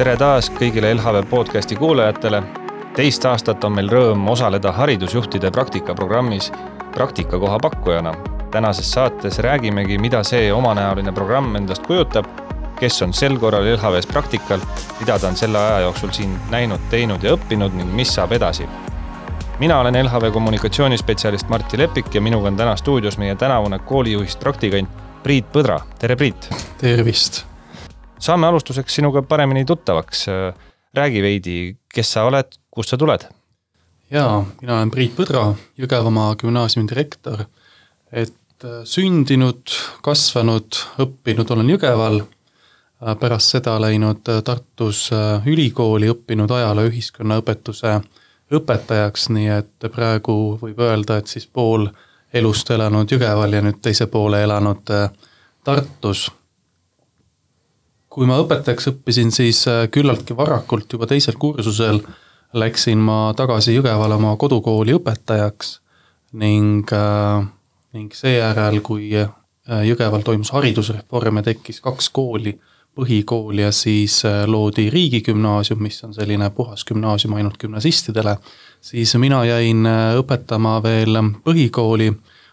Tere taas kõigile LHV podcasti kuulajatele. Teist aastat on meil rõõm osaleda haridusjuhtide praktikaprogrammis praktikakoha pakkujana. Tänases saates räägimegi, mida see omanäoline programm endast kujutab, kes on sel korral LHVs praktikal, mida ta on selle aja jooksul siin näinud, teinud ja õppinud ning mis saab edasi. Mina olen LHV kommunikatsioonispetsialist Martti Lepik ja minuga on täna stuudios meie tänavune koolijuhist praktikant Priit Põdra. Tere Priit! Tervist! Saame alustuseks sinuga paremini tuttavaks. Räägi veidi, kes sa oled, kust sa tuled? Jaa, mina olen Priit Põdra, Jõgevamaa gümnaasiumi direktor. Sündinud, kasvanud, õppinud olen Jõgeval. Pärast seda läinud Tartus ülikooli, õppinud ajaloo ühiskonnaõpetuse õpetajaks, nii et praegu võib öelda, et siis pool elust elanud Jõgeval ja nüüd teise poole elanud Tartus. Kui ma õpetajaks õppisin, siis küllaltki varakult juba teisel kursusel läksin ma tagasi Jõgevale oma kodukooli õpetajaks ning seejärel, kui Jõgeval toimus haridusreform ja tekkis 2 kooli, põhikooli ja siis loodi riigigümnaasium, mis on selline puhas gümnaasium ainult gümnasistidele, siis mina jäin õpetama veel põhikooli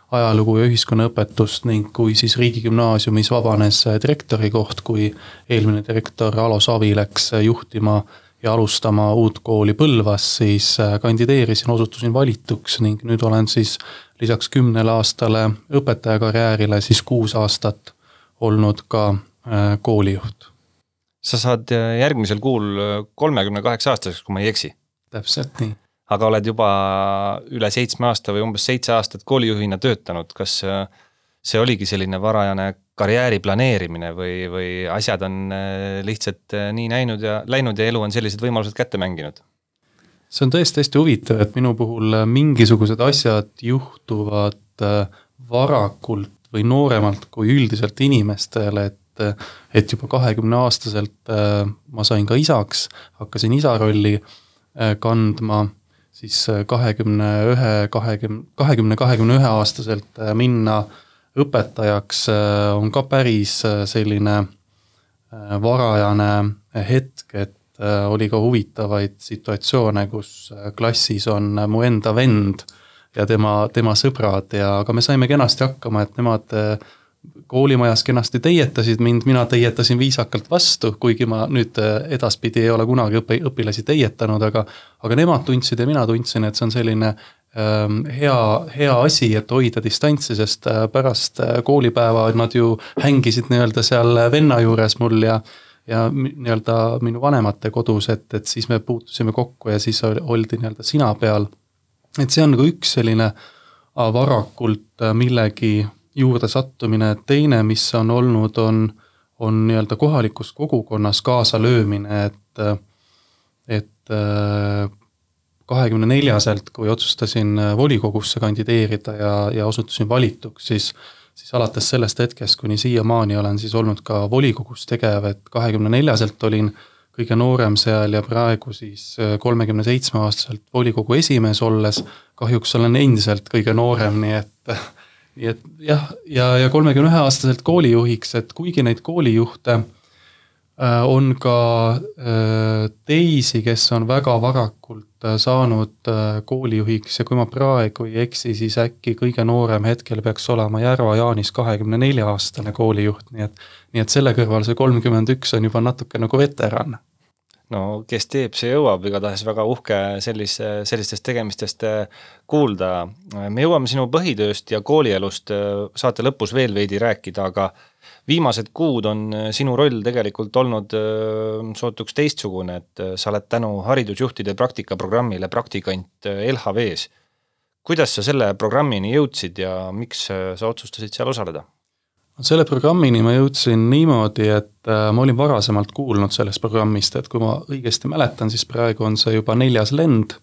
ajalugu ja ühiskonnaõpetust ning kui siis riigigümnaasiumis vabanes direktori koht, kui eelmine direktor Alo Savi läks juhtima ja alustama uut kooli Põlvas, siis kandideerisin, osutusin valituks ning nüüd olen siis lisaks 10 aastale õpetajakarjäärile siis 6 aastat olnud ka koolijuht. Sa saad järgmisel kuul 38 aastaseks, kui ma ei eksi. Täpselt nii. Aga oled juba üle 7 aasta või umbes 7 aastat koolijuhina töötanud. Kas see oligi selline varajane karjääri planeerimine või asjad on lihtsalt nii näinud ja läinud ja elu on sellised võimalused kätte mänginud? See on tõesti hästi huvitav, et minu puhul mingisugused asjad juhtuvad varakult või nooremalt kui üldiselt inimestele, et juba 20-aastaselt ma sain ka isaks, hakkasin isa rolli kandma, siis 20-21 aastaselt minna õpetajaks on ka päris selline varajane hetk, et oli ka huvitavaid situatsioone, kus klassis on mu enda vend ja tema sõbrad, aga me saime kenasti hakkama, et nemad koolimajas kenasti teietasid mind, mina teietasin viisakalt vastu, kuigi ma nüüd edaspidi ei ole kunagi õpilasi teietanud, aga nemad tundsid ja mina tundsin, et see on selline hea asi, et hoida distantsi, sest pärast koolipäeva nad ju hängisid nii-öelda seal venna juures mul ja nii-öelda minu vanemate kodus, et siis me puutusime kokku ja siis oldi nii-öelda sina peal. Et see on nagu üks selline varakult millegi juurde sattumine. Teine, mis on olnud, on nii-öelda kohalikus kogukonnas kaasa löömine, et 24-selt, kui otsustasin volikogusse kandideerida ja osutusin valituks, siis alates sellest hetkest, kuni siiamaani olen siis olnud ka volikogus tegev, et 24-selt olin kõige noorem seal ja praegu siis 37-aastaselt volikogu esimees olles, kahjuks olen endiselt kõige noorem, nii et jah, ja 31-aastaselt koolijuhiks, et kuigi neid koolijuhte on ka teisi, kes on väga varakult saanud koolijuhiks ja kui ma praegu ei eksi, siis äkki kõige noorem hetkel peaks olema Järva Jaanis 24-aastane koolijuht, nii et selle kõrval see 31 on juba natuke nagu veteran. No kes teeb, see jõuab, igatahes väga uhke sellistest tegemistest kuulda. Me jõuame sinu põhitööst ja koolielust saate lõpus veel veidi rääkida, aga viimased kuud on sinu roll tegelikult olnud sootuks teistsugune, et sa oled tänu haridusjuhtide praktikaprogrammile praktikant LHVs. Kuidas sa selle programmini jõudsid ja miks sa otsustasid seal osaleda? Selle programmini ma jõudsin niimoodi, et ma olin varasemalt kuulnud sellest programmist, et kui ma õigesti mäletan, siis praegu on see juba 4. lend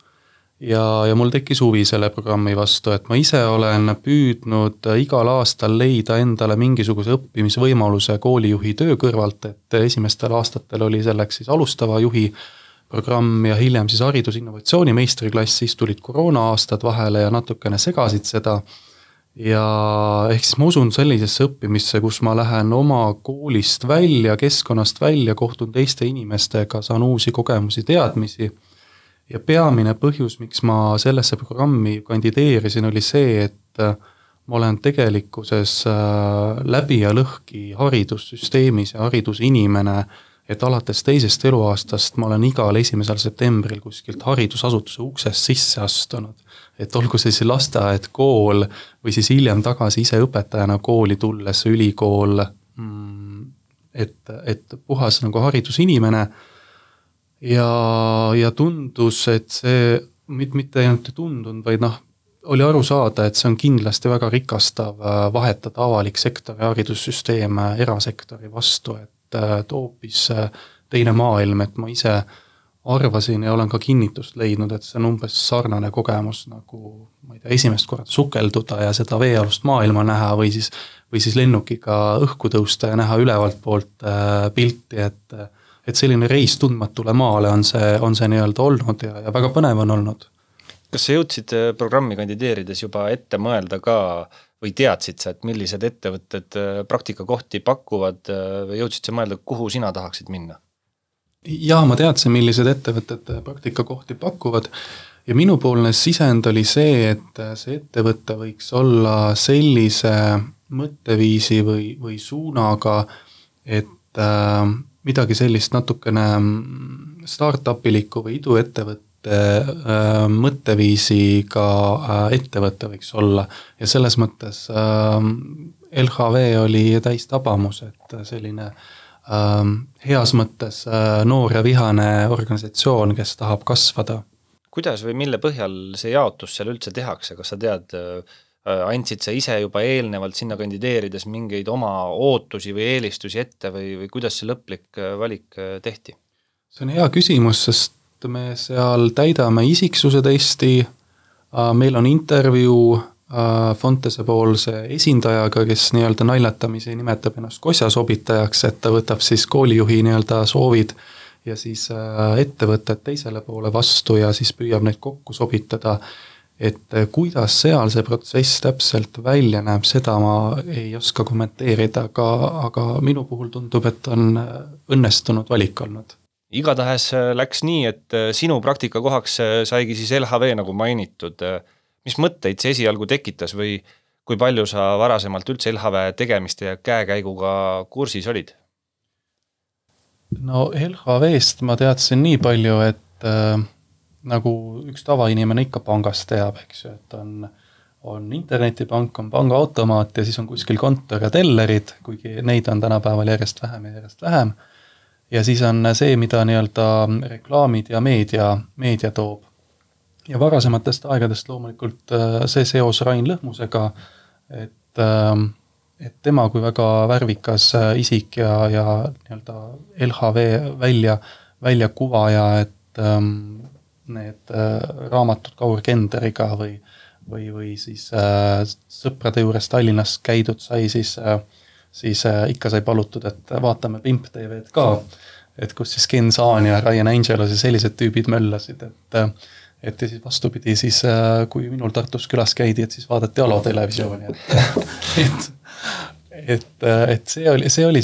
ja mul tekkis huvi selle programmi vastu, et ma ise olen püüdnud igal aastal leida endale mingisuguse õppimisvõimaluse koolijuhi töö kõrvalt, et esimestel aastatel oli selleks siis alustava juhi programm ja hiljem siis haridusinnovatsiooni meistriklass, siis tulid koroona aastad vahele ja natukene segasid seda. ja ehk siis ma usun sellisesse õppimisse, kus ma lähen oma koolist välja, keskkonnast välja, kohtun teiste inimestega, saan uusi kogemusi, teadmisi. Ja peamine põhjus, miks ma sellesse programmi kandideerisin, oli see, et ma olen tegelikkuses läbi ja lõhki haridussüsteemis ja haridusinimene, et alates teisest eluaastast ma olen igal 1. septembril kuskilt haridusasutuse uksest sisse astunud. Et olgu see siis lasteaed, kool või siis hiljem tagasi ise õpetajana kooli tulles, ülikool, et puhas nagu haridusinimene. Ja tundus, et see mitte ainult ei tundunud, vaid oli aru saada, et see on kindlasti väga rikastav vahetada avalik sektor ja haridussüsteem erasektori vastu, et hoopis teine maailm, et ma ise arvasin ja olen ka kinnitust leidnud, et see on umbes sarnane kogemus nagu, ma ei tea, esimest korda sukelduda ja seda veealust maailma näha või siis lennukiga õhku tõusta ja näha ülevalt poolt pilti, et selline reis tundmatule maale on see nii-öelda olnud ja väga põnev on olnud. Kas sa jõudsid programmi kandideerides juba ette mõelda ka või teadsid sa, et millised ettevõtted praktikakohti pakuvad või jõudsid sa mõelda, kuhu sina tahaksid minna? Ja ma teadsin, millised ettevõtted praktikakohti pakuvad ja minupoolne sisend oli see, et see ettevõte võiks olla sellise mõtteviisi või suunaga, et midagi sellist natukene startup-iliku või iduettevõtte mõtteviisiga ettevõte võiks olla ja selles mõttes LHV oli täis tabamus, et selline heas mõttes noor ja vihane organisatsioon, kes tahab kasvada. Kuidas või mille põhjal see jaotus seal üldse tehakse? Kas sa tead, andsid sa ise juba eelnevalt sinna kandideerides mingeid oma ootusi või eelistusi ette või kuidas see lõplik valik tehti? See on hea küsimus, sest me seal täidame isiksuse testi, meil on intervjuu Fontese poolse esindajaga, kes nii-öelda naljatamisi nimetab ennast kosjasobitajaks, et ta võtab siis koolijuhi nii-öelda soovid ja siis ettevõtted teisele poole vastu ja siis püüab neid kokku sobitada. Et kuidas seal see protsess täpselt välja näeb, seda ma ei oska kommenteerida, aga minu puhul tundub, et on õnnestunud valik olnud. Igatahes läks nii, et sinu praktikakohaks saigi siis LHV nagu mainitud. Mis mõtteid see esialgu tekitas või kui palju sa varasemalt üldse LHV tegemiste ja käekäiguga kursis olid? No LHV-st ma teadsin nii palju, et nagu üks tavainimene ikka pangast teab, eks ju, et on internetipank, on pangaautomaat ja siis on kuskil kontor ja tellerid, kuigi neid on tänapäeval järjest vähem. Ja siis on see, mida nii-öelda reklaamid ja meedia toob. Ja varasematest aegadest loomulikult see seos Rain Lõhmusega, et tema kui väga värvikas isik ja nii-öelda LHV välja kuvaja, et need raamatud Kaur Kenderiga või siis sõprade juures Tallinnas käidud sai, siis ikka sai palutud, et vaatame Pimp TV-d ka, et kus siis Ken Saan ja Ryan Angelos ja sellised tüübid möllasid, et ja siis vastupidi, siis kui minul Tartus külas käidi, et siis vaadati Alo televisiooni, et see oli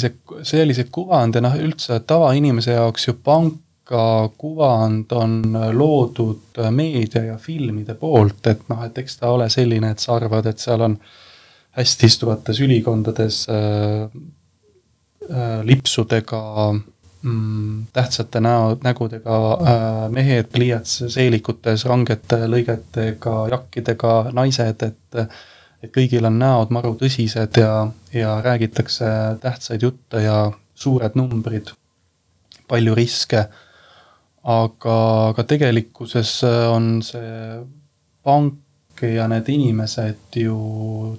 see kuvand ja üldse tavainimese jaoks ju panka kuvand on loodud meedia ja filmide poolt, et eks ta ole selline, et sa arvad, et seal on hästi istuvates ülikondades lipsudega tähtsate nägudega mehed pliiats seelikutes, rangete lõigetega, jakkidega naised, et kõigil on näod maru tõsised ja räägitakse tähtsaid jutte ja suured numbrid, palju riske, aga tegelikkuses on see pank ja need inimesed ju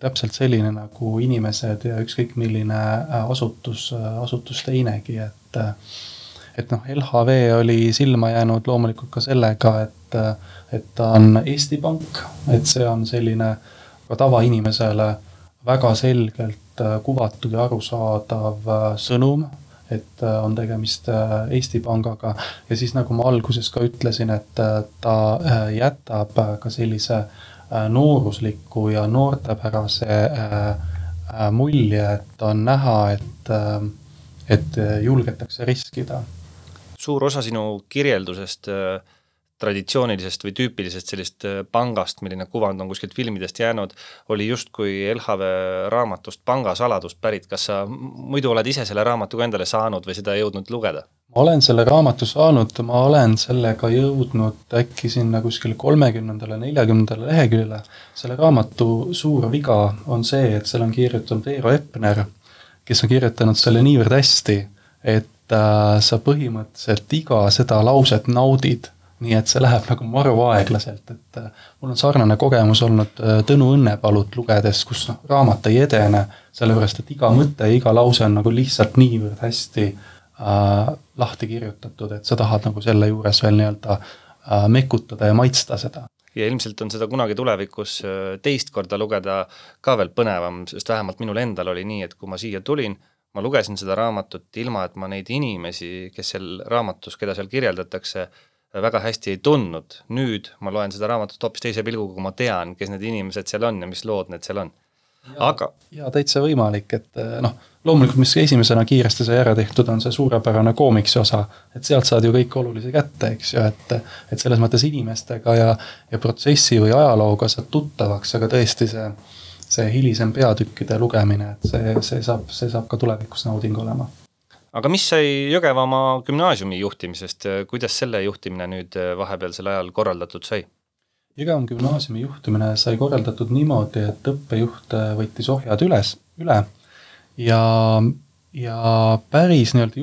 täpselt selline nagu inimesed ja ükskõik milline asutus teinegi, et LHV oli silma jäänud loomulikult ka sellega, et ta on Eesti Pank, et see on selline ka tavainimesele väga selgelt kuvatud ja arusaadav sõnum, et on tegemist Eesti Pangaga ja siis nagu ma alguses ka ütlesin, et ta jätab ka sellise noorusliku ja noortepärase mulje, et on näha, et julgetakse riskida. Suur osa sinu kirjeldusest traditsioonilisest või tüüpilisest sellist pangast, milline kuvand on kuskilt filmidest jäänud, oli justkui LHV raamatust Pangasaladust pärit. Kas sa muidu oled ise selle raamatuga endale saanud või seda jõudnud lugeda? Ma olen selle raamatu saanud, ma olen sellega jõudnud äkki sinna kuskil 30. 40. leheküljele. Selle raamatu suur viga on see, et seal on kirjutanud Veero Epner, kes on kirjutanud selle niivõrd hästi, et sa põhimõtteliselt iga seda lauset naudid, nii et see läheb nagu maru aeglaselt, et mul on sarnane kogemus olnud Tõnu Õnnepalut lugedes, kus raamat ei edene, sellepärast et iga mõte ja iga lause on nagu lihtsalt niivõrd hästi lahti kirjutatud, et sa tahad nagu selle juures veel nii-öelda mekutada ja maitsta seda. Ja ilmselt on seda kunagi tulevikus teist korda lugeda ka veel põnevam, sest vähemalt minul endal oli nii, et kui ma siia tulin, ma lugesin seda raamatut ilma, et ma neid inimesi, kes seal raamatus, keda seal kirjeldatakse, väga hästi ei tundnud. Nüüd ma loen seda raamatut hoopis teise pilguga, kui ma tean, kes need inimesed seal on ja mis lood need seal on. Ja täitsa võimalik, et loomulikult, mis esimesena kiiresti sai ära tehtud, on see suurepärane koomiksi osa, et sealt saad ju kõik olulise kätte, eks ju, et selles mõttes inimestega ja protsessi või ajalooga saad tuttavaks, aga tõesti see hilisem peatükkide lugemine, et see saab ka tulevikus nauding olema. Aga mis sai Jõgevamaa gümnaasiumi juhtimisest? Kuidas selle juhtimine nüüd vahepealsel ajal korraldatud sai? Jõgevamaa gümnaasiumi juhtimine sai korraldatud niimoodi, et õppejuht võttis ohjad üle ja päris nii-öelda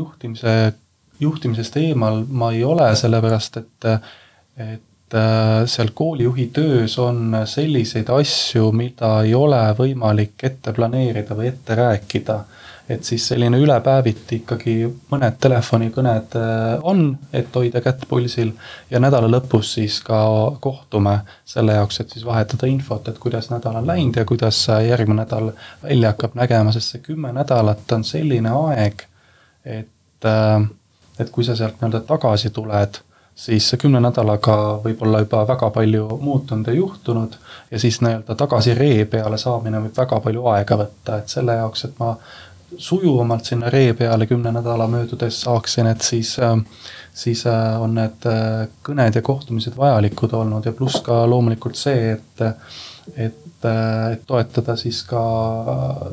juhtimisest eemal ma ei ole, sellepärast et seal koolijuhi töös on selliseid asju, mida ei ole võimalik ette planeerida või ette rääkida. Et siis selline ülepäeviti ikkagi mõned telefonikõned on, et hoida kätt pulsil ja nädala lõpus siis ka kohtume selle jaoks, et siis vahetada infot, et kuidas nädal on läinud ja kuidas järgmine nädal välja hakkab nägema, sest see 10 nädalat on selline aeg, et kui sa sealt nii-öelda tagasi tuled, siis 10 nädalaga võib olla juba väga palju muutunud ja juhtunud ja siis nii-öelda tagasi ree peale saamine võib väga palju aega võtta, et selle jaoks, et ma sujuvamalt sinna ree peale 10 nädala möödudes saaksin, et siis on need kõned ja kohtumised vajalikud olnud ja pluss ka loomulikult see, et toetada siis ka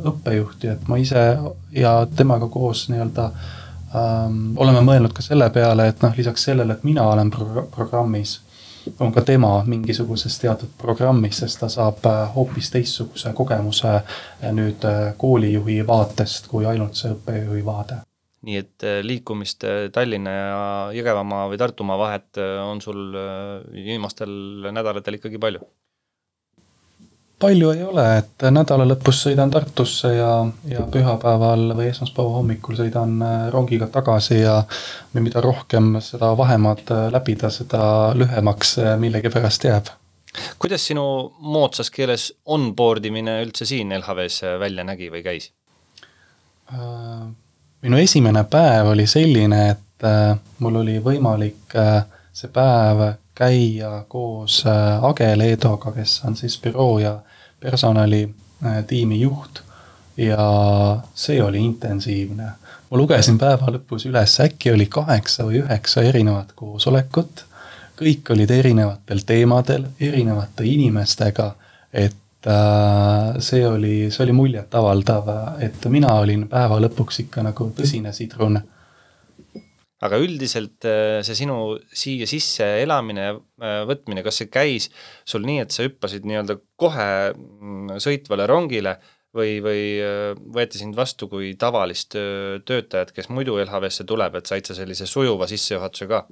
õppejuhti, et ma ise ja temaga koos nii-öelda oleme mõelnud ka selle peale, et lisaks sellele, et mina olen programmis, on ka tema mingisuguses teatud programmis, sest ta saab hoopis teistsuguse kogemuse nüüd koolijuhi vaatest kui ainult see õppejuhi vaade. Nii et liikumist Tallinna ja Jõgevamaa või Tartumaa vahet on sul viimastel nädalatel ikkagi palju? Palju ei ole, et nädala lõpus sõidan Tartusse ja pühapäeval või esmaspäeva hommikul sõidan rongiga tagasi ja mida rohkem seda vahemaad läbida, seda lühemaks millegi pärast jääb. Kuidas sinu moodsas keeles onboardimine üldse siin LHVs välja nägi või käis? Minu esimene päev oli selline, et mul oli võimalik see päev käia koos Age Leedoga, kes on siis büroo ja personalitiimi juht ja see oli intensiivne. Ma lugesin päeva lõpus üles, äkki oli 8 või 9 erinevat koosolekut, kõik olid erinevatel teemadel, erinevate inimestega, et see oli muljet avaldav, et mina olin päeva lõpuks ikka nagu tõsine sidrun. Aga üldiselt see sinu siia sisse elamine ja võtmine, kas see käis sul nii, et sa hüppasid nii-öelda kohe sõitvale rongile või võeti sind vastu kui tavalist töötajat, kes muidu LHVsse tuleb, et said sa sellise sujuva sissejuhatuse ka?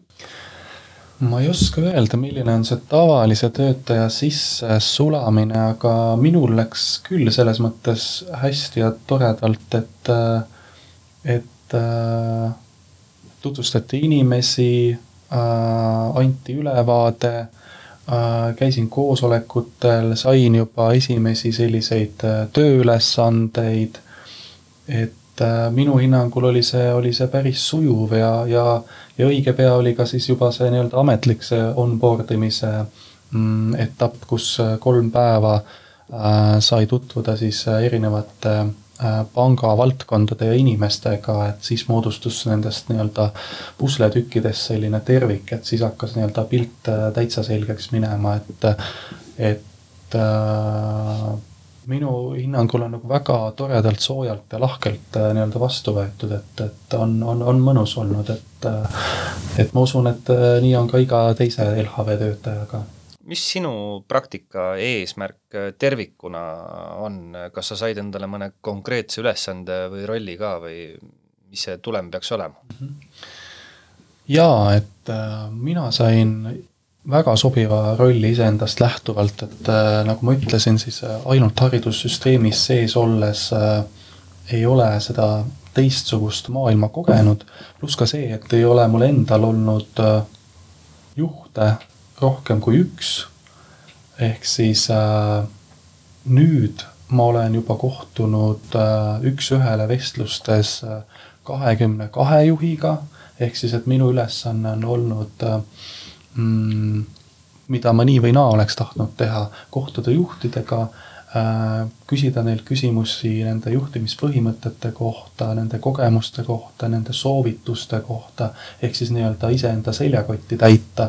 Ma ei oska öelda, milline on see tavalise töötaja sisse sulamine, aga minul läks küll selles mõttes hästi ja toredalt, et tutvustati inimesi, anti ülevaade, käisin koosolekutel, sain juba esimesi selliseid tööülesandeid, et minu hinnangul oli see päris sujuv ja õige pea oli ka siis juba see nii-öelda ametlik see onboardimise etapp, kus 3 päeva sai tutvuda siis erinevate panga valdkondade ja inimestega, et siis moodustus nendest nii-öelda pusletükkidest selline tervik, et siis hakkas nii-öelda pilt täitsa selgeks minema, et minu hinnangul on nagu väga toredalt, soojalt ja lahkelt nii-öelda vastu võetud, et on mõnus olnud, et ma usun, et nii on ka iga teise LHV töötajaga. Mis sinu praktika eesmärk tervikuna on? Kas sa said endale mõne konkreetse ülesande või rolli ka või mis see tulem peaks olema? Jaa, et mina sain väga sobiva rolli iseendast lähtuvalt, et nagu ma ütlesin, siis ainult haridussüsteemis sees olles ei ole seda teistsugust maailma kogenud, pluss ka see, et ei ole mul endal olnud juhte rohkem kui üks, ehk siis nüüd ma olen juba kohtunud üks-ühele vestlustes 22 juhiga, ehk siis, et minu ülesanne on olnud, mida ma nii või naa oleks tahtnud teha, kohtuda juhtidega, küsida neil küsimusi nende juhtimispõhimõtete kohta, nende kogemuste kohta, nende soovituste kohta, ehk siis nii-öelda iseenda seljakotti täita.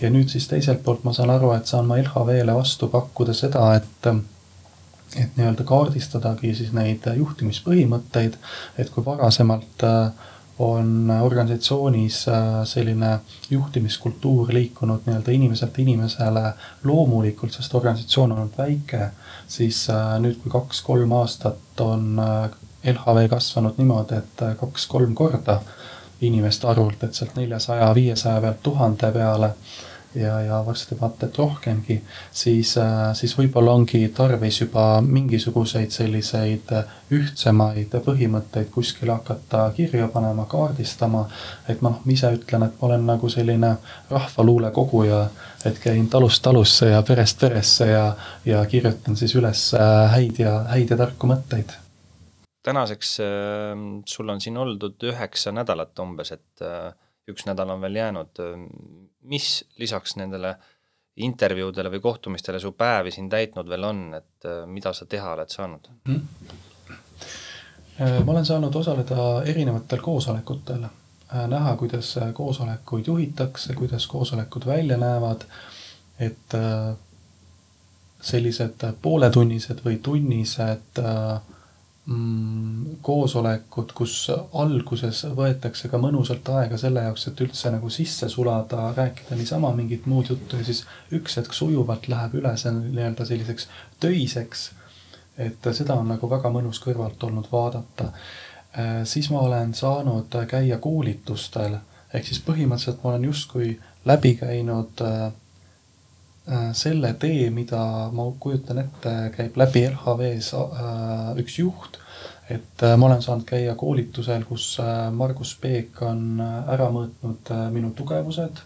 Ja nüüd siis teiselt poolt ma saan aru, et saan ma LHV-le vastu pakkuda seda, et nii-öelda kaardistadagi siis neid juhtimispõhimõtteid, et kui varasemalt on organisatsioonis selline juhtimiskultuur liikunud nii-öelda inimeselt inimesele loomulikult, sest organisatsioon on olnud väike, siis nüüd kui 2-3 aastat on LHV kasvanud niimoodi, et 2-3 korda inimeste arvult, et sealt 400-500 pealt 1000 peale ja varsti vaata, et rohkemgi, siis võib-olla ongi tarvis juba mingisuguseid selliseid ühtsemaid põhimõtteid kuskil hakata kirja panema, kaardistama, et ma ise ütlen, et ma olen nagu selline rahvaluule koguja, et käin talust talusse ja perest peresse ja kirjutan siis üles häid ja tarku mõtteid. Tänaseks sul on siin oldud 9 nädalat umbes, et 1 nädal on veel jäänud. Mis lisaks nendele intervjuudele või kohtumistele su päevi siin täitnud veel on, et mida sa teha oled saanud? Ma olen saanud osaleda erinevatel koosolekutel, näha, kuidas koosolekuid juhitakse, kuidas koosolekud välja näevad, et sellised pooletunnised või tunnised koosolekud, kus alguses võetakse ka mõnusalt aega selle jaoks, et üldse nagu sisse sulada, rääkida niisama mingit muud juttu ja siis üks hetk sujuvalt läheb üle see nii-öelda selliseks töiseks, et seda on nagu väga mõnus kõrvalt olnud vaadata. Siis ma olen saanud käia koolitustel, ehk siis põhimõtteliselt ma olen justkui läbi käinud selle tee, mida ma kujutan ette, käib läbi LHV-s üks juht, et ma olen saanud käia koolitusel, kus Margus Peek on ära mõõtnud minu tugevused,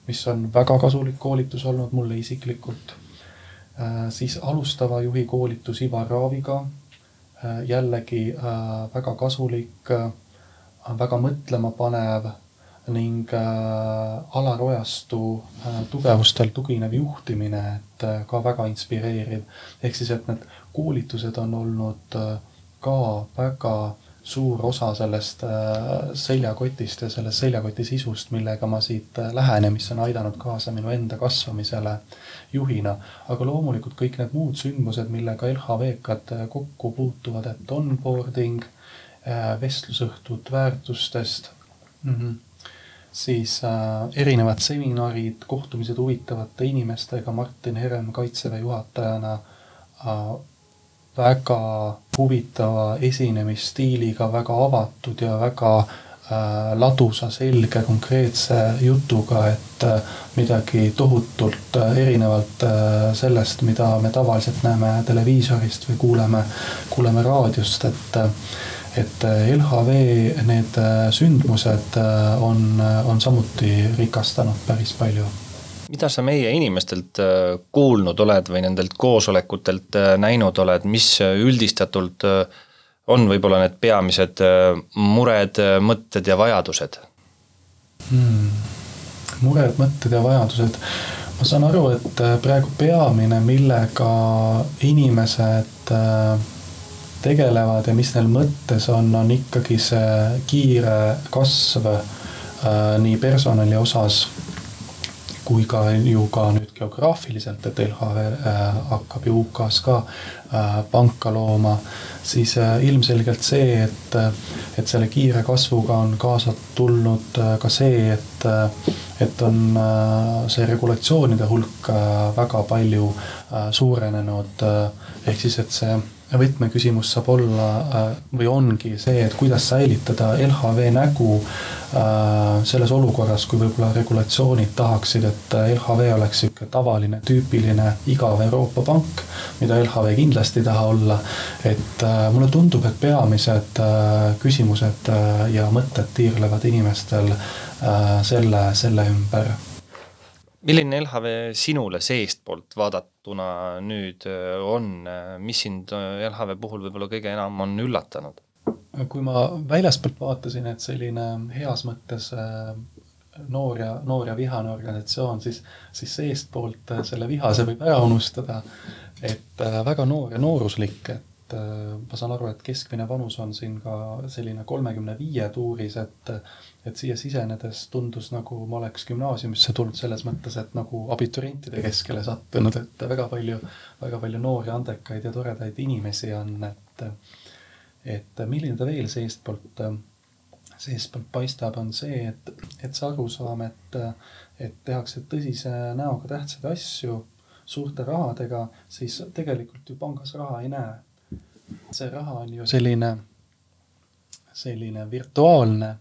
mis on väga kasulik koolitus olnud mulle isiklikult. Siis alustava juhi koolitus Ivar Raaviga, jällegi väga kasulik, väga mõtlema panev ning Alar Ojastu tugevustel tuginev juhtimine, et ka väga inspireeriv. Ehk siis, et need koolitused on olnud ka väga suur osa sellest seljakotist ja sellest seljakoti sisust, millega ma siit lähenen, mis on aidanud kaasa minu enda kasvamisele juhina. Aga loomulikult kõik need muud sündmused, millega LHV-kad kokku puutuvad, et onboarding, vestlusõhtud väärtustest, siis erinevad seminarid, kohtumised huvitavate inimestega, Martin Herem Kaitseväe juhatajana, väga huvitava esinemisstiiliga, väga avatud ja väga ladusa, selge, konkreetse jutuga, et midagi tohutult erinevalt sellest, mida me tavaliselt näeme televiisorist või kuuleme raadiost, et LHV need sündmused on samuti rikastanud päris palju. Mida sa meie inimestelt kuulnud oled või nendelt koosolekutelt näinud oled, mis üldistatult on võib-olla need peamised mured, mõtted ja vajadused? Mured, mõtted ja vajadused. Ma saan aru, et praegu peamine, millega inimesed tegelevad ja mis neil mõttes on ikkagi see kiire kasv nii personali osas kui ka ju ka nüüd geograafiliselt, et LHV hakkab ju UK-s ka panka looma, siis ilmselgelt see, et selle kiire kasvuga on kaasa tulnud ka see, et on see regulatsioonide hulk väga palju suurenenud, ehk siis, et see võtmeküsimus saab olla või ongi see, et kuidas säilitada LHV nägu selles olukorras, kui võib-olla regulatsioonid tahaksid, et LHV oleks siuke tavaline, tüüpiline, igav Euroopa pank, mida LHV kindlasti ei taha olla. Et mulle tundub, et peamised küsimused ja mõtted tiirlevad inimestel selle ümber. Milline LHV sinule seestpoolt vaadatuna nüüd on, mis sind LHV puhul võib-olla kõige enam on üllatanud? Kui ma väljaspoolt vaatasin, et selline heas mõttes noor ja vihane organisatsioon, siis seestpoolt selle vihase võib ära unustada, et väga noor ja nooruslik, et ma saan aru, et keskmine vanus on siin ka selline 35 tuuris, et siia sisenedes tundus nagu ma oleks gümnaasiumisse tulnud selles mõttes, et nagu abiturientide keskele sattunud, et väga palju noori, andekaid ja toredaid inimesi on, et milline ta veel seestpoolt paistab, on see, et see arusaam, et tehakse tõsise näoga tähtsaid asju suurte rahadega, siis tegelikult ju pangas raha ei näe. See raha on ju selline virtuaalne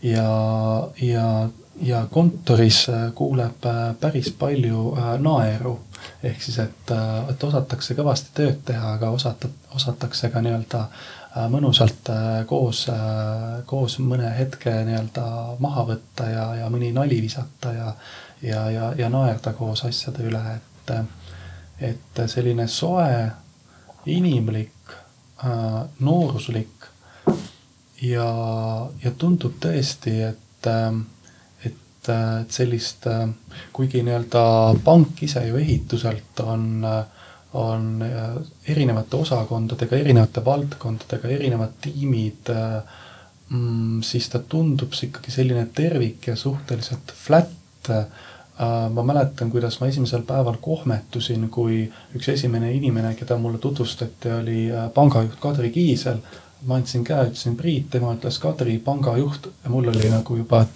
ja kontoris kuuleb päris palju naeru. Ehk siis, et osatakse kõvasti tööd teha, aga osatakse ka nii-öelda mõnusalt koos mõne hetke nii-öelda maha võtta ja mõni nali visata ja naerda koos asjade üle. Et selline soe, inimlik, nooruslik ja tundub tõesti, et sellist, kuigi nii-öelda pank ise ju ehituselt on erinevate osakondadega, erinevate valdkondadega, erinevad tiimid, siis ta tundub ikkagi selline tervik ja suhteliselt flat. Ma mäletan, kuidas ma esimesel päeval kohmetusin, kui üks esimene inimene, keda mulle tutvustati, oli pangajuht Kadri Kiisel. Ma andsin käe, ütlesin Priit, tema ütles Kadri, pangajuht, ja mul oli nagu juba,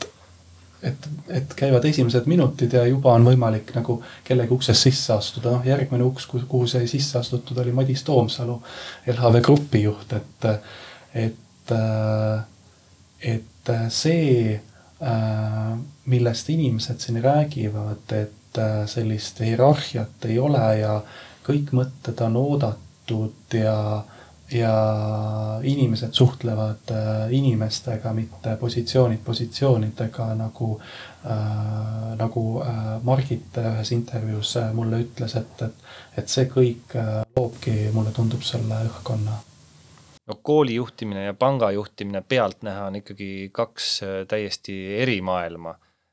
et käivad esimesed minutid ja juba on võimalik nagu kellegi ukses sisse astuda. Järgmine uks, kuhu sai sisse astutud, oli Madis Toomsalu, LHV grupi juht, et see, millest inimesed siin räägivad, et sellist hierarhiat ei ole ja kõik mõtted on oodatud ja inimesed suhtlevad inimestega, mitte positsioonidega, nagu Margit ühes intervjuus mulle ütles, et see kõik loobki, mulle tundub selle õhkkonna. No, kooli juhtimine ja panga juhtimine pealt näha on ikkagi kaks täiesti eri maailma.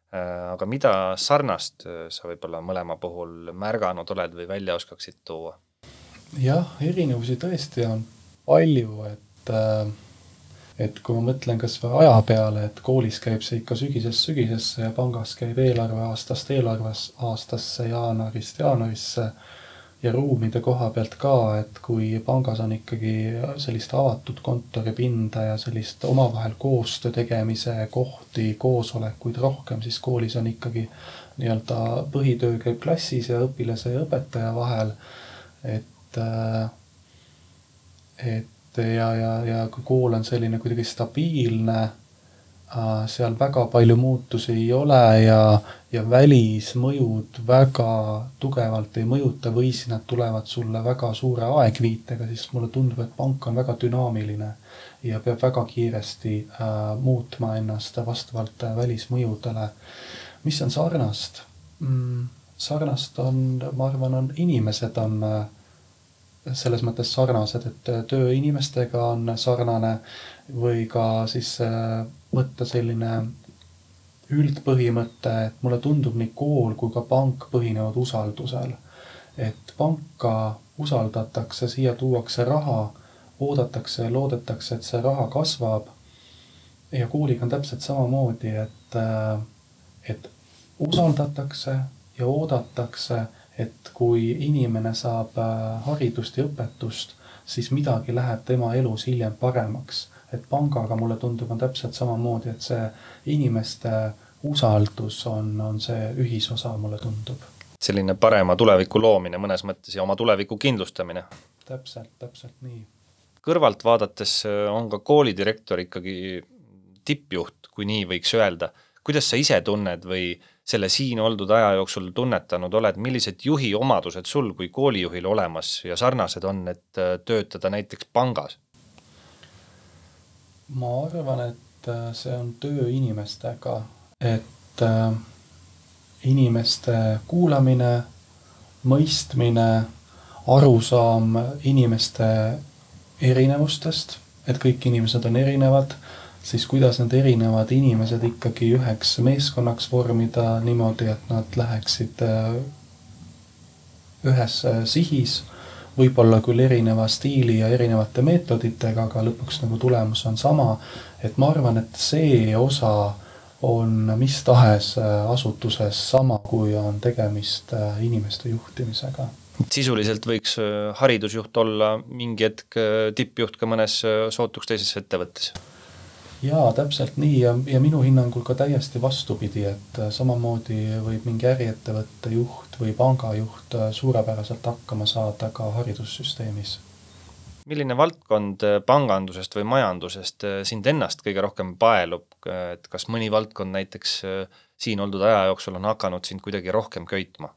Aga mida sarnast sa võib-olla mõlema puhul märganud oled või välja oskaksid tuua? Jah, erinevusi tõesti on palju, et kui ma mõtlen kas või aja peale, et koolis käib see ikka sügisesse ja pangas käib eelarveaastast eelarveaastasse, jaanuarisse ja ruumide koha pealt ka, et kui pangas on ikkagi sellist avatud kontoripinda ja sellist omavahel koostöö tegemise kohti, koosolekuid rohkem, siis koolis on ikkagi nii-öelda põhitöö käib klassis ja õpilase ja õpetaja vahel, ja kui kool on selline kuidagi stabiilne, seal väga palju muutusi ei ole ja välismõjud väga tugevalt ei mõjuta või siis nad tulevad sulle väga suure aegviitega, siis mulle tundub, et pank on väga dünaamiline ja peab väga kiiresti muutma ennast vastavalt välismõjudele. Mis on sarnast? Sarnast on, ma arvan, inimesed on selles mõttes sarnased, et töö inimestega on sarnane või ka siis võtta selline üldpõhimõte, et mulle tundub nii kool kui ka pank põhinevad usaldusel. Et panka usaldatakse, siia tuuakse raha, oodatakse ja loodetakse, et see raha kasvab. Ja kooliga on täpselt samamoodi, et usaldatakse ja oodatakse, et kui inimene saab haridust ja õpetust, siis midagi läheb tema elus hiljem paremaks. Et pangaga mulle tundub on täpselt samamoodi, et see inimeste usaldus on see ühisosa, mulle tundub. Selline parema tuleviku loomine mõnes mõttes ja oma tuleviku kindlustamine. Täpselt nii. Kõrvalt vaadates on ka koolidirektor ikkagi tippjuht, kui nii võiks öelda. Kuidas sa ise tunned või selle siin oldud aja jooksul tunnetanud oled, millised juhi omadused sul kui koolijuhil olemas ja sarnased on, et töötada näiteks pangas? Ma arvan, et see on töö inimestega, et inimeste kuulamine, mõistmine, arusaam inimeste erinevustest, et kõik inimesed on erinevad, siis kuidas need erinevad inimesed ikkagi üheks meeskonnaks vormida niimoodi, et nad läheksid ühes sihis, võib-olla küll erineva stiili ja erinevate meetoditega, aga lõpuks nagu tulemus on sama. Et ma arvan, et see osa on mis tahes asutuses sama, kui on tegemist inimeste juhtimisega. Sisuliselt võiks haridusjuht olla mingi hetk tippjuht ka mõnes sootuks teises ettevõttes. Jaa, täpselt nii ja minu hinnangul ka täiesti vastupidi, et samamoodi võib mingi äriettevõtte juht või pangajuht suurepäraselt hakkama saada ka haridussüsteemis. Milline valdkond pangandusest või majandusest sind ennast kõige rohkem paelub, et kas mõni valdkond näiteks siin oldud aja jooksul on hakanud sind kuidagi rohkem köitma?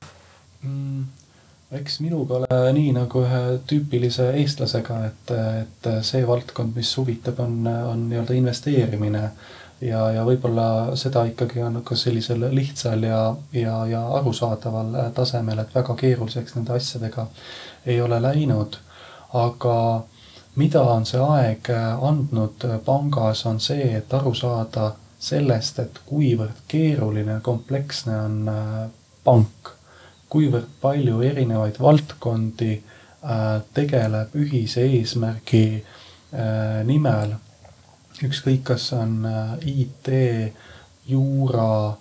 Eks minuga ole nii nagu ühe tüüpilise eestlasega, et see valdkond, mis huvitab, on nii-öelda investeerimine ja võib-olla seda ikkagi on ka sellisel lihtsal ja arusaadaval tasemel, et väga keeruliseks nende asjadega ei ole läinud. Aga mida on see aeg andnud pangas on see, et aru saada sellest, et kuivõrd keeruline kompleksne on pank, kuivõrd palju erinevaid valdkondi tegeleb ühise eesmärgi nimel. Ükskõik, kas on IT, juura,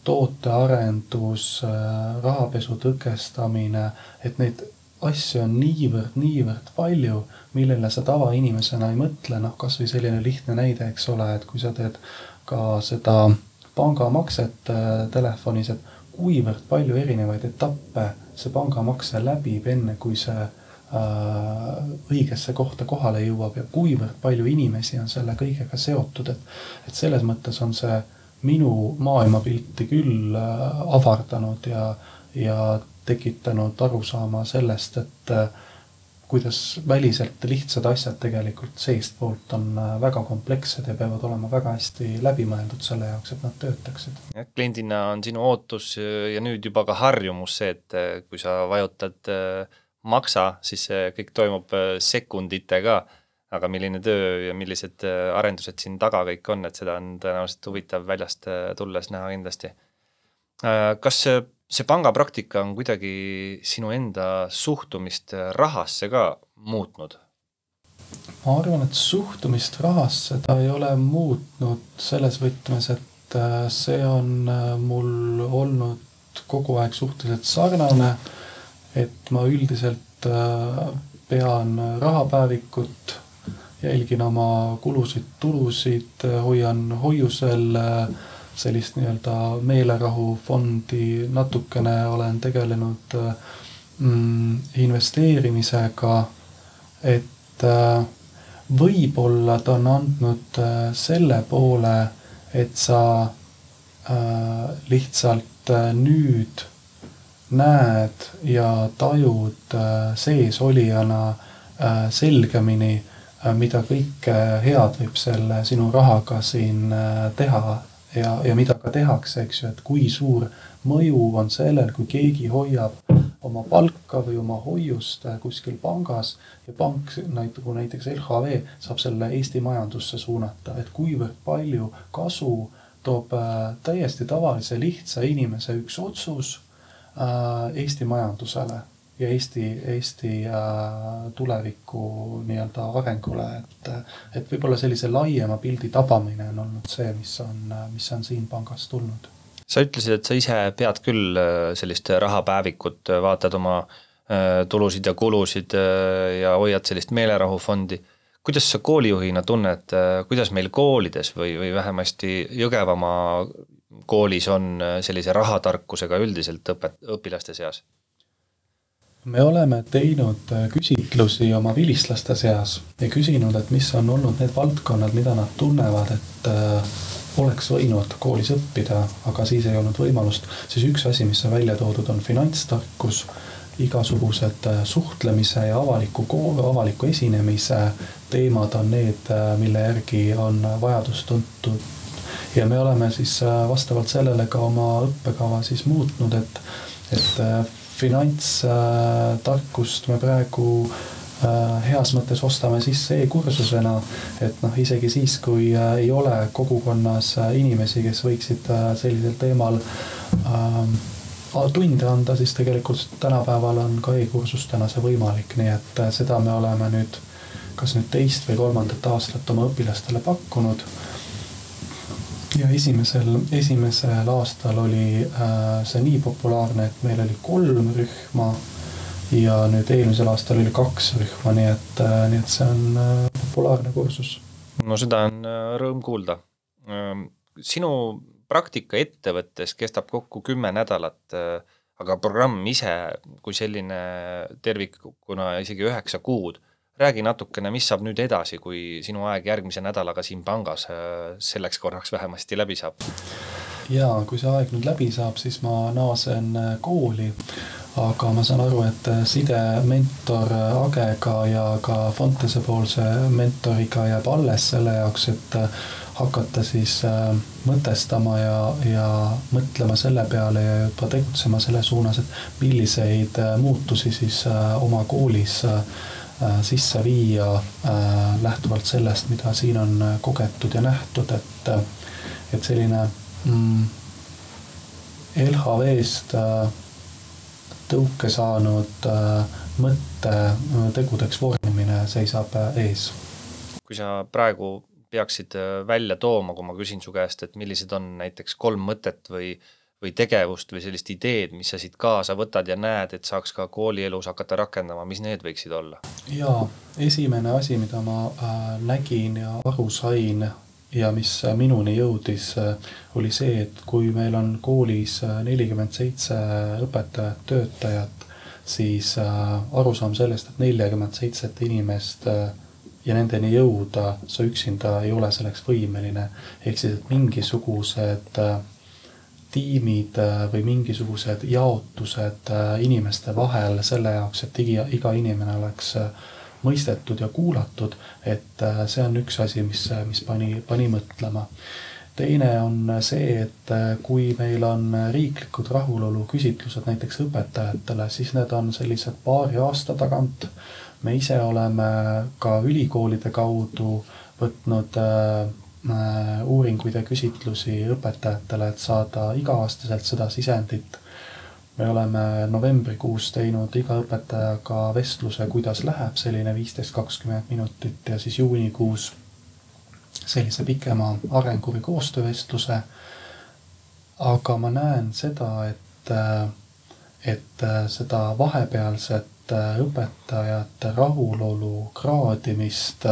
tootearendus, rahapesu tõkestamine, et neid asju on niivõrd palju, millele sa tavainimesena ei mõtle. Kas või selline lihtne näide, eks ole, et kui sa teed ka seda pangamakset telefonis, et kuivõrd palju erinevaid etappe see pangamakse läbib enne, kui see õigesse kohta kohale jõuab ja kuivõrd palju inimesi on selle kõigega seotud, et selles mõttes on see minu maailmapilti küll avardanud ja tekitanud arusaama sellest, et kuidas väliselt lihtsad asjad tegelikult seestpoolt on väga komplekssed ja peavad olema väga hästi läbimõeldud selle jaoks, et nad töötaksid. Kliendina on sinu ootus ja nüüd juba ka harjumus see, et kui sa vajutad maksa, siis see kõik toimub sekunditega, aga milline töö ja millised arendused siin taga kõik on, et seda on tõenäoliselt huvitav väljast tulles näha kindlasti. Kas see pangapraktika on kuidagi sinu enda suhtumist rahasse ka muutnud? Ma arvan, et suhtumist rahasse ta ei ole muutnud selles võtmes, et see on mul olnud kogu aeg suhteliselt sarnane, et ma üldiselt pean rahapäevikut, jälgin oma kulusid, hoian hoiusel sellist nii-öelda meelerahufondi, natukene olen tegelenud investeerimisega, et võib-olla ta on andnud selle poole, et sa lihtsalt nüüd näed ja tajud sees olijana selgemini, mida kõike head võib selle sinu rahaga siin teha ja mida ka tehakse, eks ju, et kui suur mõju on sellel, kui keegi hoiab oma palka või oma hoiust kuskil pangas ja pank, nagu näiteks LHV, saab selle Eesti majandusse suunata, et kuivõrd palju kasu toob täiesti tavalise lihtsa inimese üks otsus Eesti majandusele ja Eesti tuleviku nii-öelda arengule, et võib-olla sellise laiema pildi tabamine on olnud see, mis on siin pangas tulnud. Sa ütlesid, et sa ise pead küll sellist rahapäevikut, vaatad oma tulusid ja kulusid ja hoiad sellist meelerahufondi. Kuidas sa koolijuhina tunned, kuidas meil koolides või vähemasti Jõgevamaa koolis on sellise rahatarkusega üldiselt õpilaste seas? Me oleme teinud küsitlusi oma vilistlaste seas ja küsinud, et mis on olnud need valdkonnad, mida nad tunnevad, et oleks võinud koolis õppida, aga siis ei olnud võimalust. Siis üks asi, mis on välja toodud, on finantstarkus, igasugused suhtlemise ja avaliku esinemise teemad on need, mille järgi on vajadus tuntud. Ja me oleme siis vastavalt sellele ka oma õppekava siis muutnud, et finantstarkust me praegu heas mõttes ostame sisse e-kursusena, et isegi siis, kui ei ole kogukonnas inimesi, kes võiksid sellisel teemal tunde anda, siis tegelikult tänapäeval on ka e-kursustena see võimalik, nii et seda me oleme nüüd kas nüüd 2. või 3. aastat oma õpilastele pakkunud. Ja esimesel aastal oli see nii populaarne, et meil oli 3 rühma ja nüüd eelmisel aastal oli 2 rühma, nii et see on populaarne kursus. No seda on rõõm kuulda. Sinu praktika ettevõttes kestab kokku 10 nädalat, aga programm ise kui selline tervikuna isegi 9 kuud. Räägi natukene, mis saab nüüd edasi, kui sinu aeg järgmise nädalaga siin pangas selleks korraks vähemasti läbi saab? Jaa, kui see aeg nüüd läbi saab, siis ma naasen kooli, aga ma saan aru, et side mentor Agega ja ka Fontese poolse mentoriga jääb alles selle jaoks, et hakata siis mõtestama ja mõtlema selle peale ja juba tegutsema selle suunas, et milliseid muutusi siis oma koolis sisse viia lähtuvalt sellest, mida siin on kogetud ja nähtud, et selline LHV-st tõuke saanud mõtte tegudeks vormimine seisab ees. Kui sa praegu peaksid välja tooma, kui ma küsin su käest, et millised on näiteks 3 mõtet või tegevust või sellist ideed, mis sa siit kaasa võtad ja näed, et saaks ka koolielus hakata rakendama, mis need võiksid olla? Jaa, esimene asi, mida ma nägin ja aru sain ja mis minuni jõudis, oli see, et kui meil on koolis 47 õpetajat, töötajat, siis arusaam sellest, et 47 inimest ja nendeni jõuda, sa üksinda ei ole selleks võimeline. Ehk siis, et mingisugused tiimid või mingisugused jaotused inimeste vahel selle jaoks, et iga inimene oleks mõistetud ja kuulatud, et see on üks asi, mis pani mõtlema. Teine on see, et kui meil on riiklikud rahulolu küsitlused näiteks õpetajatele, siis need on sellised paari aasta tagant. Me ise oleme ka ülikoolide kaudu võtnud uuringuid ja küsitlusi õpetajatele, et saada iga-aastaselt seda sisendit. Me oleme novembrikuus teinud iga õpetajaga vestluse, kuidas läheb selline 15-20 minutit ja siis juunikuus sellise pikema arengu- või koostöövestluse. Aga ma näen seda, et seda vahepealset õpetajate rahulolu kraadimist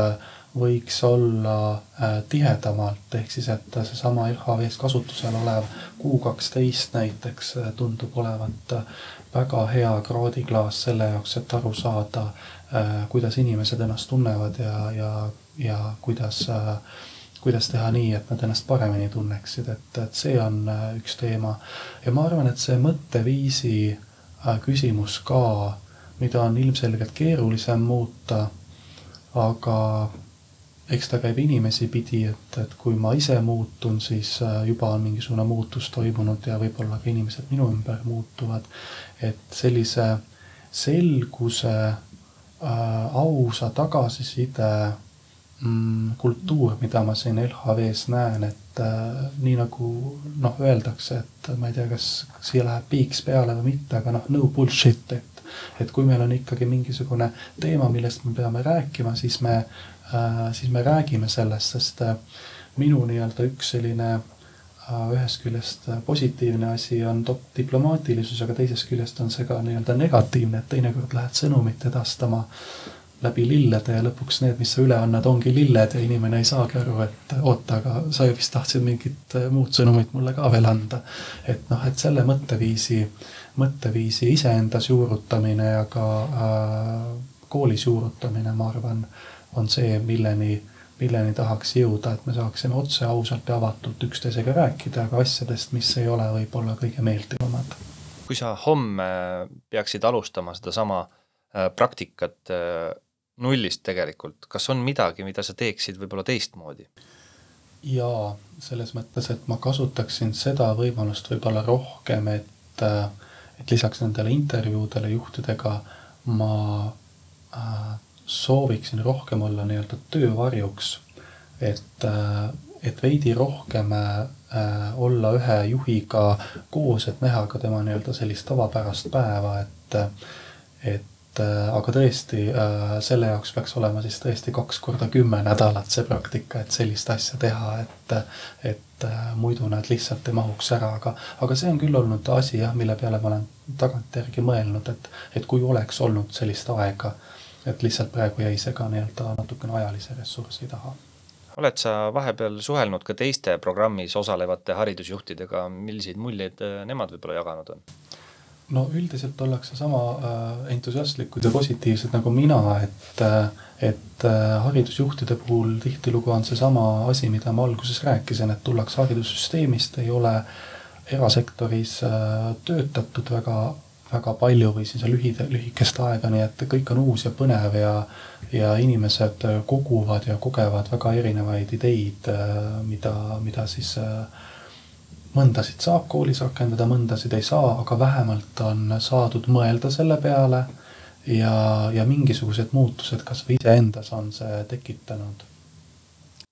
võiks olla tihedamalt, ehk siis, et see sama LHV-s kasutusel olev Q12 näiteks tundub olevat väga hea kraadiklaas selle jaoks, et aru saada, kuidas inimesed ennast tunnevad ja kuidas teha nii, et nad ennast paremini tunneksid, et see on üks teema. Ja ma arvan, et see mõtteviisi küsimus ka, mida on ilmselgelt keerulisem muuta, aga eks ta käib inimesi pidi, et kui ma ise muutun, siis juba on mingisugune muutus toimunud ja võib-olla ka inimesed minu ümber muutuvad. Et sellise selguse, ausa tagasiside kultuur, mida ma siin LHV-s näen, et nii nagu öeldakse, et ma ei tea, kas siia läheb piiks peale või mitte, aga no bullshit, et kui meil on ikkagi mingisugune teema, millest me peame rääkima, siis me räägime sellest, sest minu nii-öelda üks selline ühest küljest positiivne asi on diplomaatilisus, aga teisest küljest on see ka nii-öelda negatiivne, et teinekord lähed sõnumit edastama läbi lillede ja lõpuks need, mis sa üle annad, ongi lilled ja inimene ei saagi aru, et oota, aga sa vist tahtsid mingit muud sõnumit mulle ka veel anda. Et selle mõtteviisi iseendas juurutamine ja ka koolis juurutamine, ma arvan, on see, milleni tahaks jõuda, et me saaksime otse ausalt ja avatult üksteisega rääkida, aga asjadest, mis ei ole võib-olla kõige meeldivamad. Kui sa homme peaksid alustama seda sama praktikat nullist tegelikult, kas on midagi, mida sa teeksid võib-olla teistmoodi? Jaa, selles mõttes, et ma kasutaksin seda võimalust võib-olla rohkem, et lisaks nendele intervjuudele juhtidega ma sooviksin rohkem olla nii-öelda töövarjuks, et veidi rohkem olla ühe juhiga koos, et näha ka tema nii-öelda sellist tavapärast päeva, aga tõesti selle jaoks peaks olema siis tõesti 2 korda 10 nädalat see praktika, et sellist asja teha, et muidu nad lihtsalt ei mahuks ära, aga see on küll olnud asi, mille peale ma olen tagantjärgi mõelnud, et kui oleks olnud sellist aega, et lihtsalt praegu jäi see ka nii-öelda natukene ajalise ressursi taha. Oled sa vahepeal suhelnud ka teiste programmis osalevate haridusjuhtidega, milliseid muljeid nemad võib-olla jaganud on? No üldiselt ollakse sama entusiastlikud ja positiivsed nagu mina, et haridusjuhtide puhul tihtilugu on see sama asi, mida ma alguses rääkisin, et tullakse haridussüsteemist, ei ole erasektoris töötatud väga palju või siis lühikest aega, nii et kõik on uus ja põnev ja inimesed koguvad ja kogevad väga erinevaid ideid, mida siis mõndasid saab koolis rakendada, mõndasid ei saa, aga vähemalt on saadud mõelda selle peale ja mingisugused muutused kas või iseendas on see tekitanud.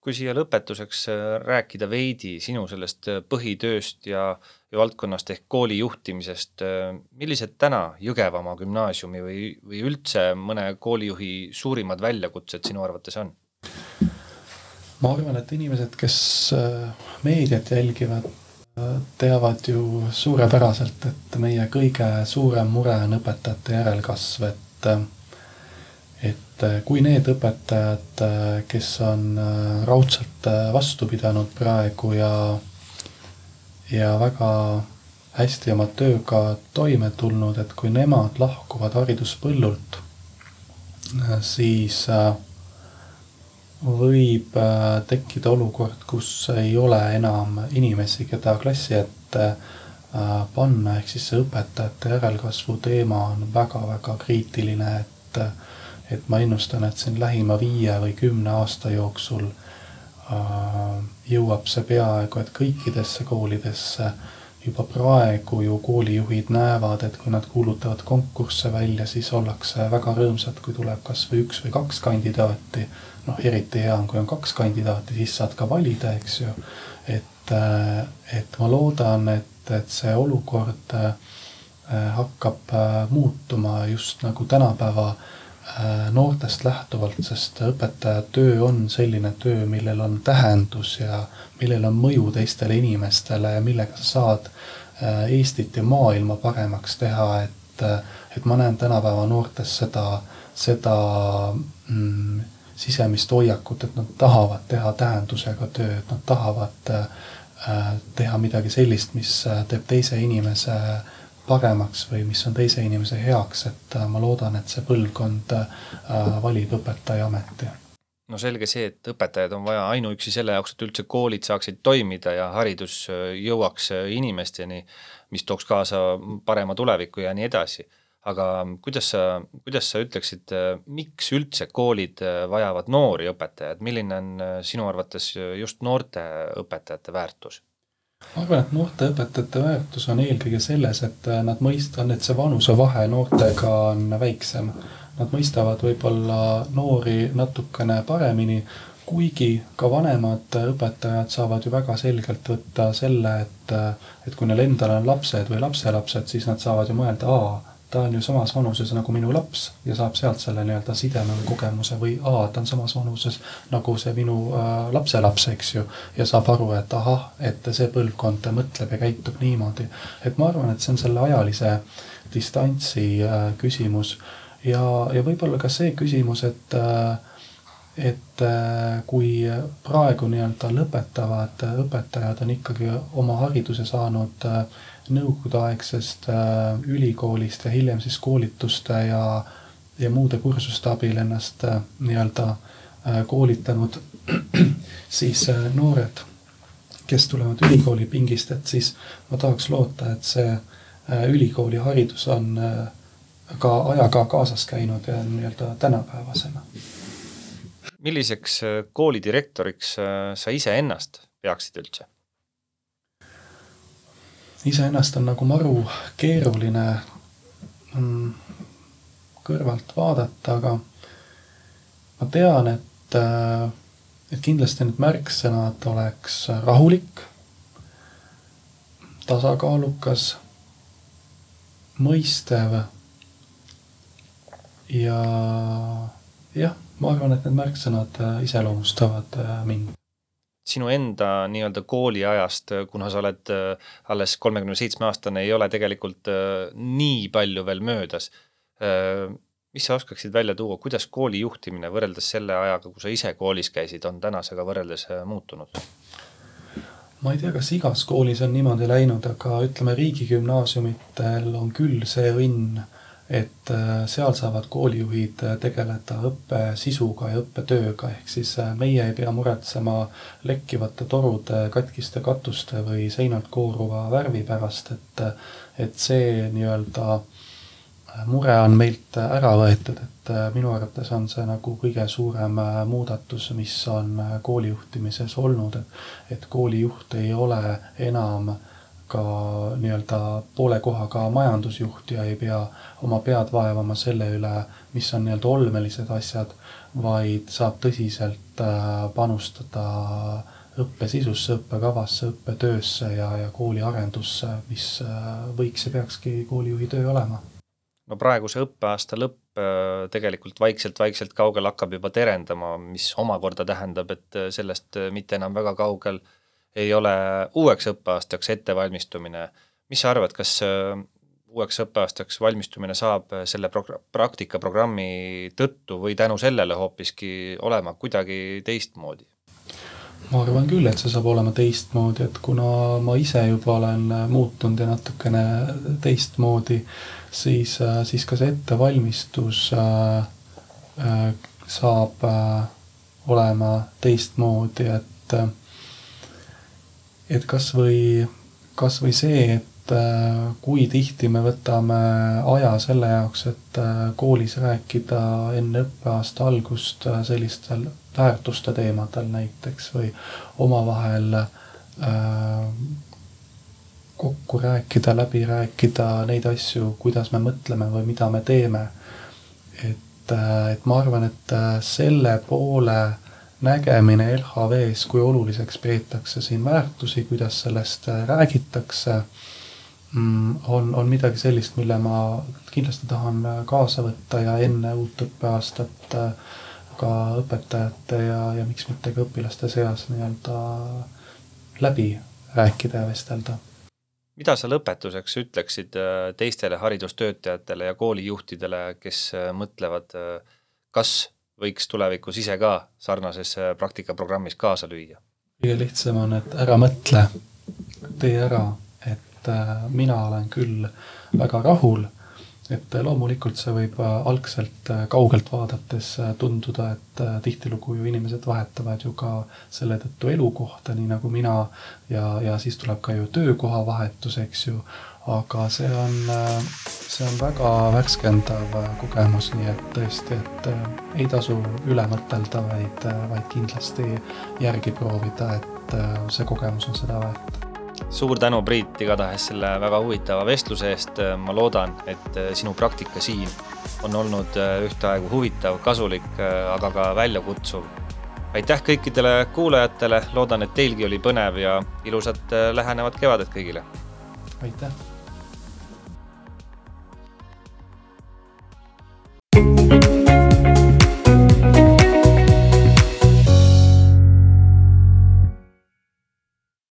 Kui siia lõpetuseks rääkida veidi sinu sellest põhitööst ja valdkonnast ehk kooli juhtimisest, millised täna Jõgevamaa gümnaasiumi või üldse mõne koolijuhi suurimad väljakutsed sinu arvates on? Ma arvan, et inimesed, kes meediat jälgivad, teavad ju suurepäraselt, et meie kõige suurem mure on õpetajate järelkasv, et kui need õpetajad, kes on raudselt vastu pidanud praegu ja väga hästi oma tööga toime tulnud, et kui nemad lahkuvad hariduspõllult, siis võib tekkida olukord, kus ei ole enam inimesi, keda klassi ette panna, ehk siis see õpetajate järelkasvu teema on väga-väga kriitiline, et ma ennustan, et siin lähima 5 või 10 aasta jooksul jõuab see peaaegu, et kõikidesse koolidesse juba praegu ju koolijuhid näevad, et kui nad kuulutavad konkursse välja, siis ollakse väga rõõmsad, kui tuleb kas või 1 või 2 kandidaati. Eriti hea on, kui on 2 kandidaati, siis saad ka valida, eks ju. Et ma loodan, et see olukord hakkab muutuma just nagu tänapäeva noortest lähtuvalt, sest õpetaja töö on selline töö, millel on tähendus ja millel on mõju teistele inimestele ja millega sa saad Eestit ja maailma paremaks teha, et ma näen tänapäeva noortes seda sisemist hoiakut, et nad tahavad teha tähendusega tööd, nad tahavad teha midagi sellist, mis teeb teise inimese paremaks või mis on teise inimese heaks, et ma loodan, et see põlvkond valib õpetaja ameti. No selge see, et õpetajaid on vaja ainuüksi selle jaoks, et üldse koolid saaksid toimida ja haridus jõuaks inimesteni, mis tooks kaasa parema tuleviku ja nii edasi. Aga kuidas sa ütleksid, miks üldse koolid vajavad noori õpetajad? Milline on sinu arvates just noorte õpetajate väärtus? Ma arvan, et noorte õpetajate väärtus on eelkõige selles, et nad mõistan, et see vanusevahe noortega on väiksem. Nad mõistavad võib-olla noori natukene paremini, kuigi ka vanemad õpetajad saavad ju väga selgelt võtta selle, et kui neil endal on lapsed või lapselapsed, siis nad saavad ju mõelda, ta on ju samas vanuses nagu minu laps ja saab sealt selle nii-öelda sideme või kogemuse või ta on samas vanuses nagu see minu lapselaps, eks ju, ja saab aru, et et see põlvkond mõtleb ja käitub niimoodi. Et ma arvan, et see on selle ajalise distantsi küsimus ja võib-olla ka see küsimus, et kui praegu nii-öelda lõpetavad õpetajad on ikkagi oma hariduse saanud nõukogudeaegsest ülikoolist ja hiljem siis koolituste ja muude kursuste abil ennast nii-öelda koolitanud, siis noored, kes tulevad ülikooli pingist, et siis ma tahaks loota, et see ülikooli haridus on ka ajaga kaasas käinud ja nii-öelda tänapäevasena. Milliseks koolidirektoriks sa ise ennast peaksid üldse? Iseennast on nagu maru keeruline kõrvalt vaadata, aga ma tean, et kindlasti need märksõnad oleks rahulik, tasakaalukas, mõistev ja jah, ma arvan, et need märksõnad iseloomustavad mind. Sinu enda nii-öelda kooliajast, kuna sa oled alles 37-aastane, ei ole tegelikult nii palju veel möödas. Mis sa oskaksid välja tuua, kuidas kooli juhtimine võrreldes selle ajaga, kui sa ise koolis käisid, on tänasega võrreldes muutunud? Ma ei tea, kas igas koolis on niimoodi läinud, aga ütleme, riigigümnaasiumitel on küll see õnn, et seal saavad koolijuhid tegeleda õppe sisuga ja õppetööga, ehk siis meie ei pea muretsema lekkivate torude, katkiste katuste või seinalt kooruva värvi pärast, et see nii-öelda mure on meilt ära võetud, et minu arvates on see nagu kõige suurem muudatus, mis on koolijuhtimises olnud, et koolijuht ei ole enam ka nii-öelda poole kohaga majandusjuht ja ei pea oma pead vaevama selle üle, mis on nii-öelda olmelised asjad, vaid saab tõsiselt panustada õppesisusse, õppekavasse, õppetöösse ja kooli arendusse, mis võiks ja peakski koolijuhi töö olema. No praegu see õppeaasta lõpp tegelikult vaikselt kaugel hakkab juba terendama, mis omakorda tähendab, et sellest mitte enam väga kaugel ei ole uueks õppeaastaks ettevalmistumine. Mis sa arvad, kas uueks õppeaastaks valmistumine saab selle praktikaprogrammi tõttu või tänu sellele hoopiski olema kuidagi teistmoodi? Ma arvan küll, et see saab olema teistmoodi, et kuna ma ise juba olen muutunud ja natukene teistmoodi, siis ka see ettevalmistus saab olema teistmoodi, et kas või see, et kui tihti me võtame aja selle jaoks, et koolis rääkida enne õppeaasta algust sellistel väärtuste teemadel näiteks või omavahel kokku rääkida, läbi rääkida neid asju, kuidas me mõtleme või mida me teeme. Et ma arvan, et selle poole nägemine LHV-s, kui oluliseks peetakse siin väärtusi, kuidas sellest räägitakse, on midagi sellist, mille ma kindlasti tahan kaasa võtta ja enne uut õppeaastat ka õpetajate ja miks mitte ka õpilaste seas nii-öelda läbi rääkida ja vestelda. Mida sa lõpetuseks ütleksid teistele haridustöötajatele ja koolijuhtidele, kes mõtlevad, kas võiks tulevikus ise ka sarnases praktikaprogrammis kaasa lüüa? Kõige lihtsam on, et ära mõtle, tee ära, et mina olen küll väga rahul, et loomulikult see võib algselt kaugelt vaadates tunduda, et tihtilugu ju inimesed vahetavad ju ka selle tõttu elukohta, nii nagu mina, ja siis tuleb ka ju töökoha vahetus, eks ju, aga see on väga värskendav kogemus, nii et tõesti, et ei tasu üle mõtelda, vaid kindlasti järgi proovida, et see kogemus on seda väärt. Suur tänu, Priit, igatahes selle väga huvitava vestluse eest. Ma loodan, et sinu praktika siin on olnud ühtaegu huvitav, kasulik, aga ka väljakutsuv. aitäh kõikidele kuulajatele, loodan, et teilgi oli põnev ja ilusat lähenevat kevadet kõigile. Aitäh!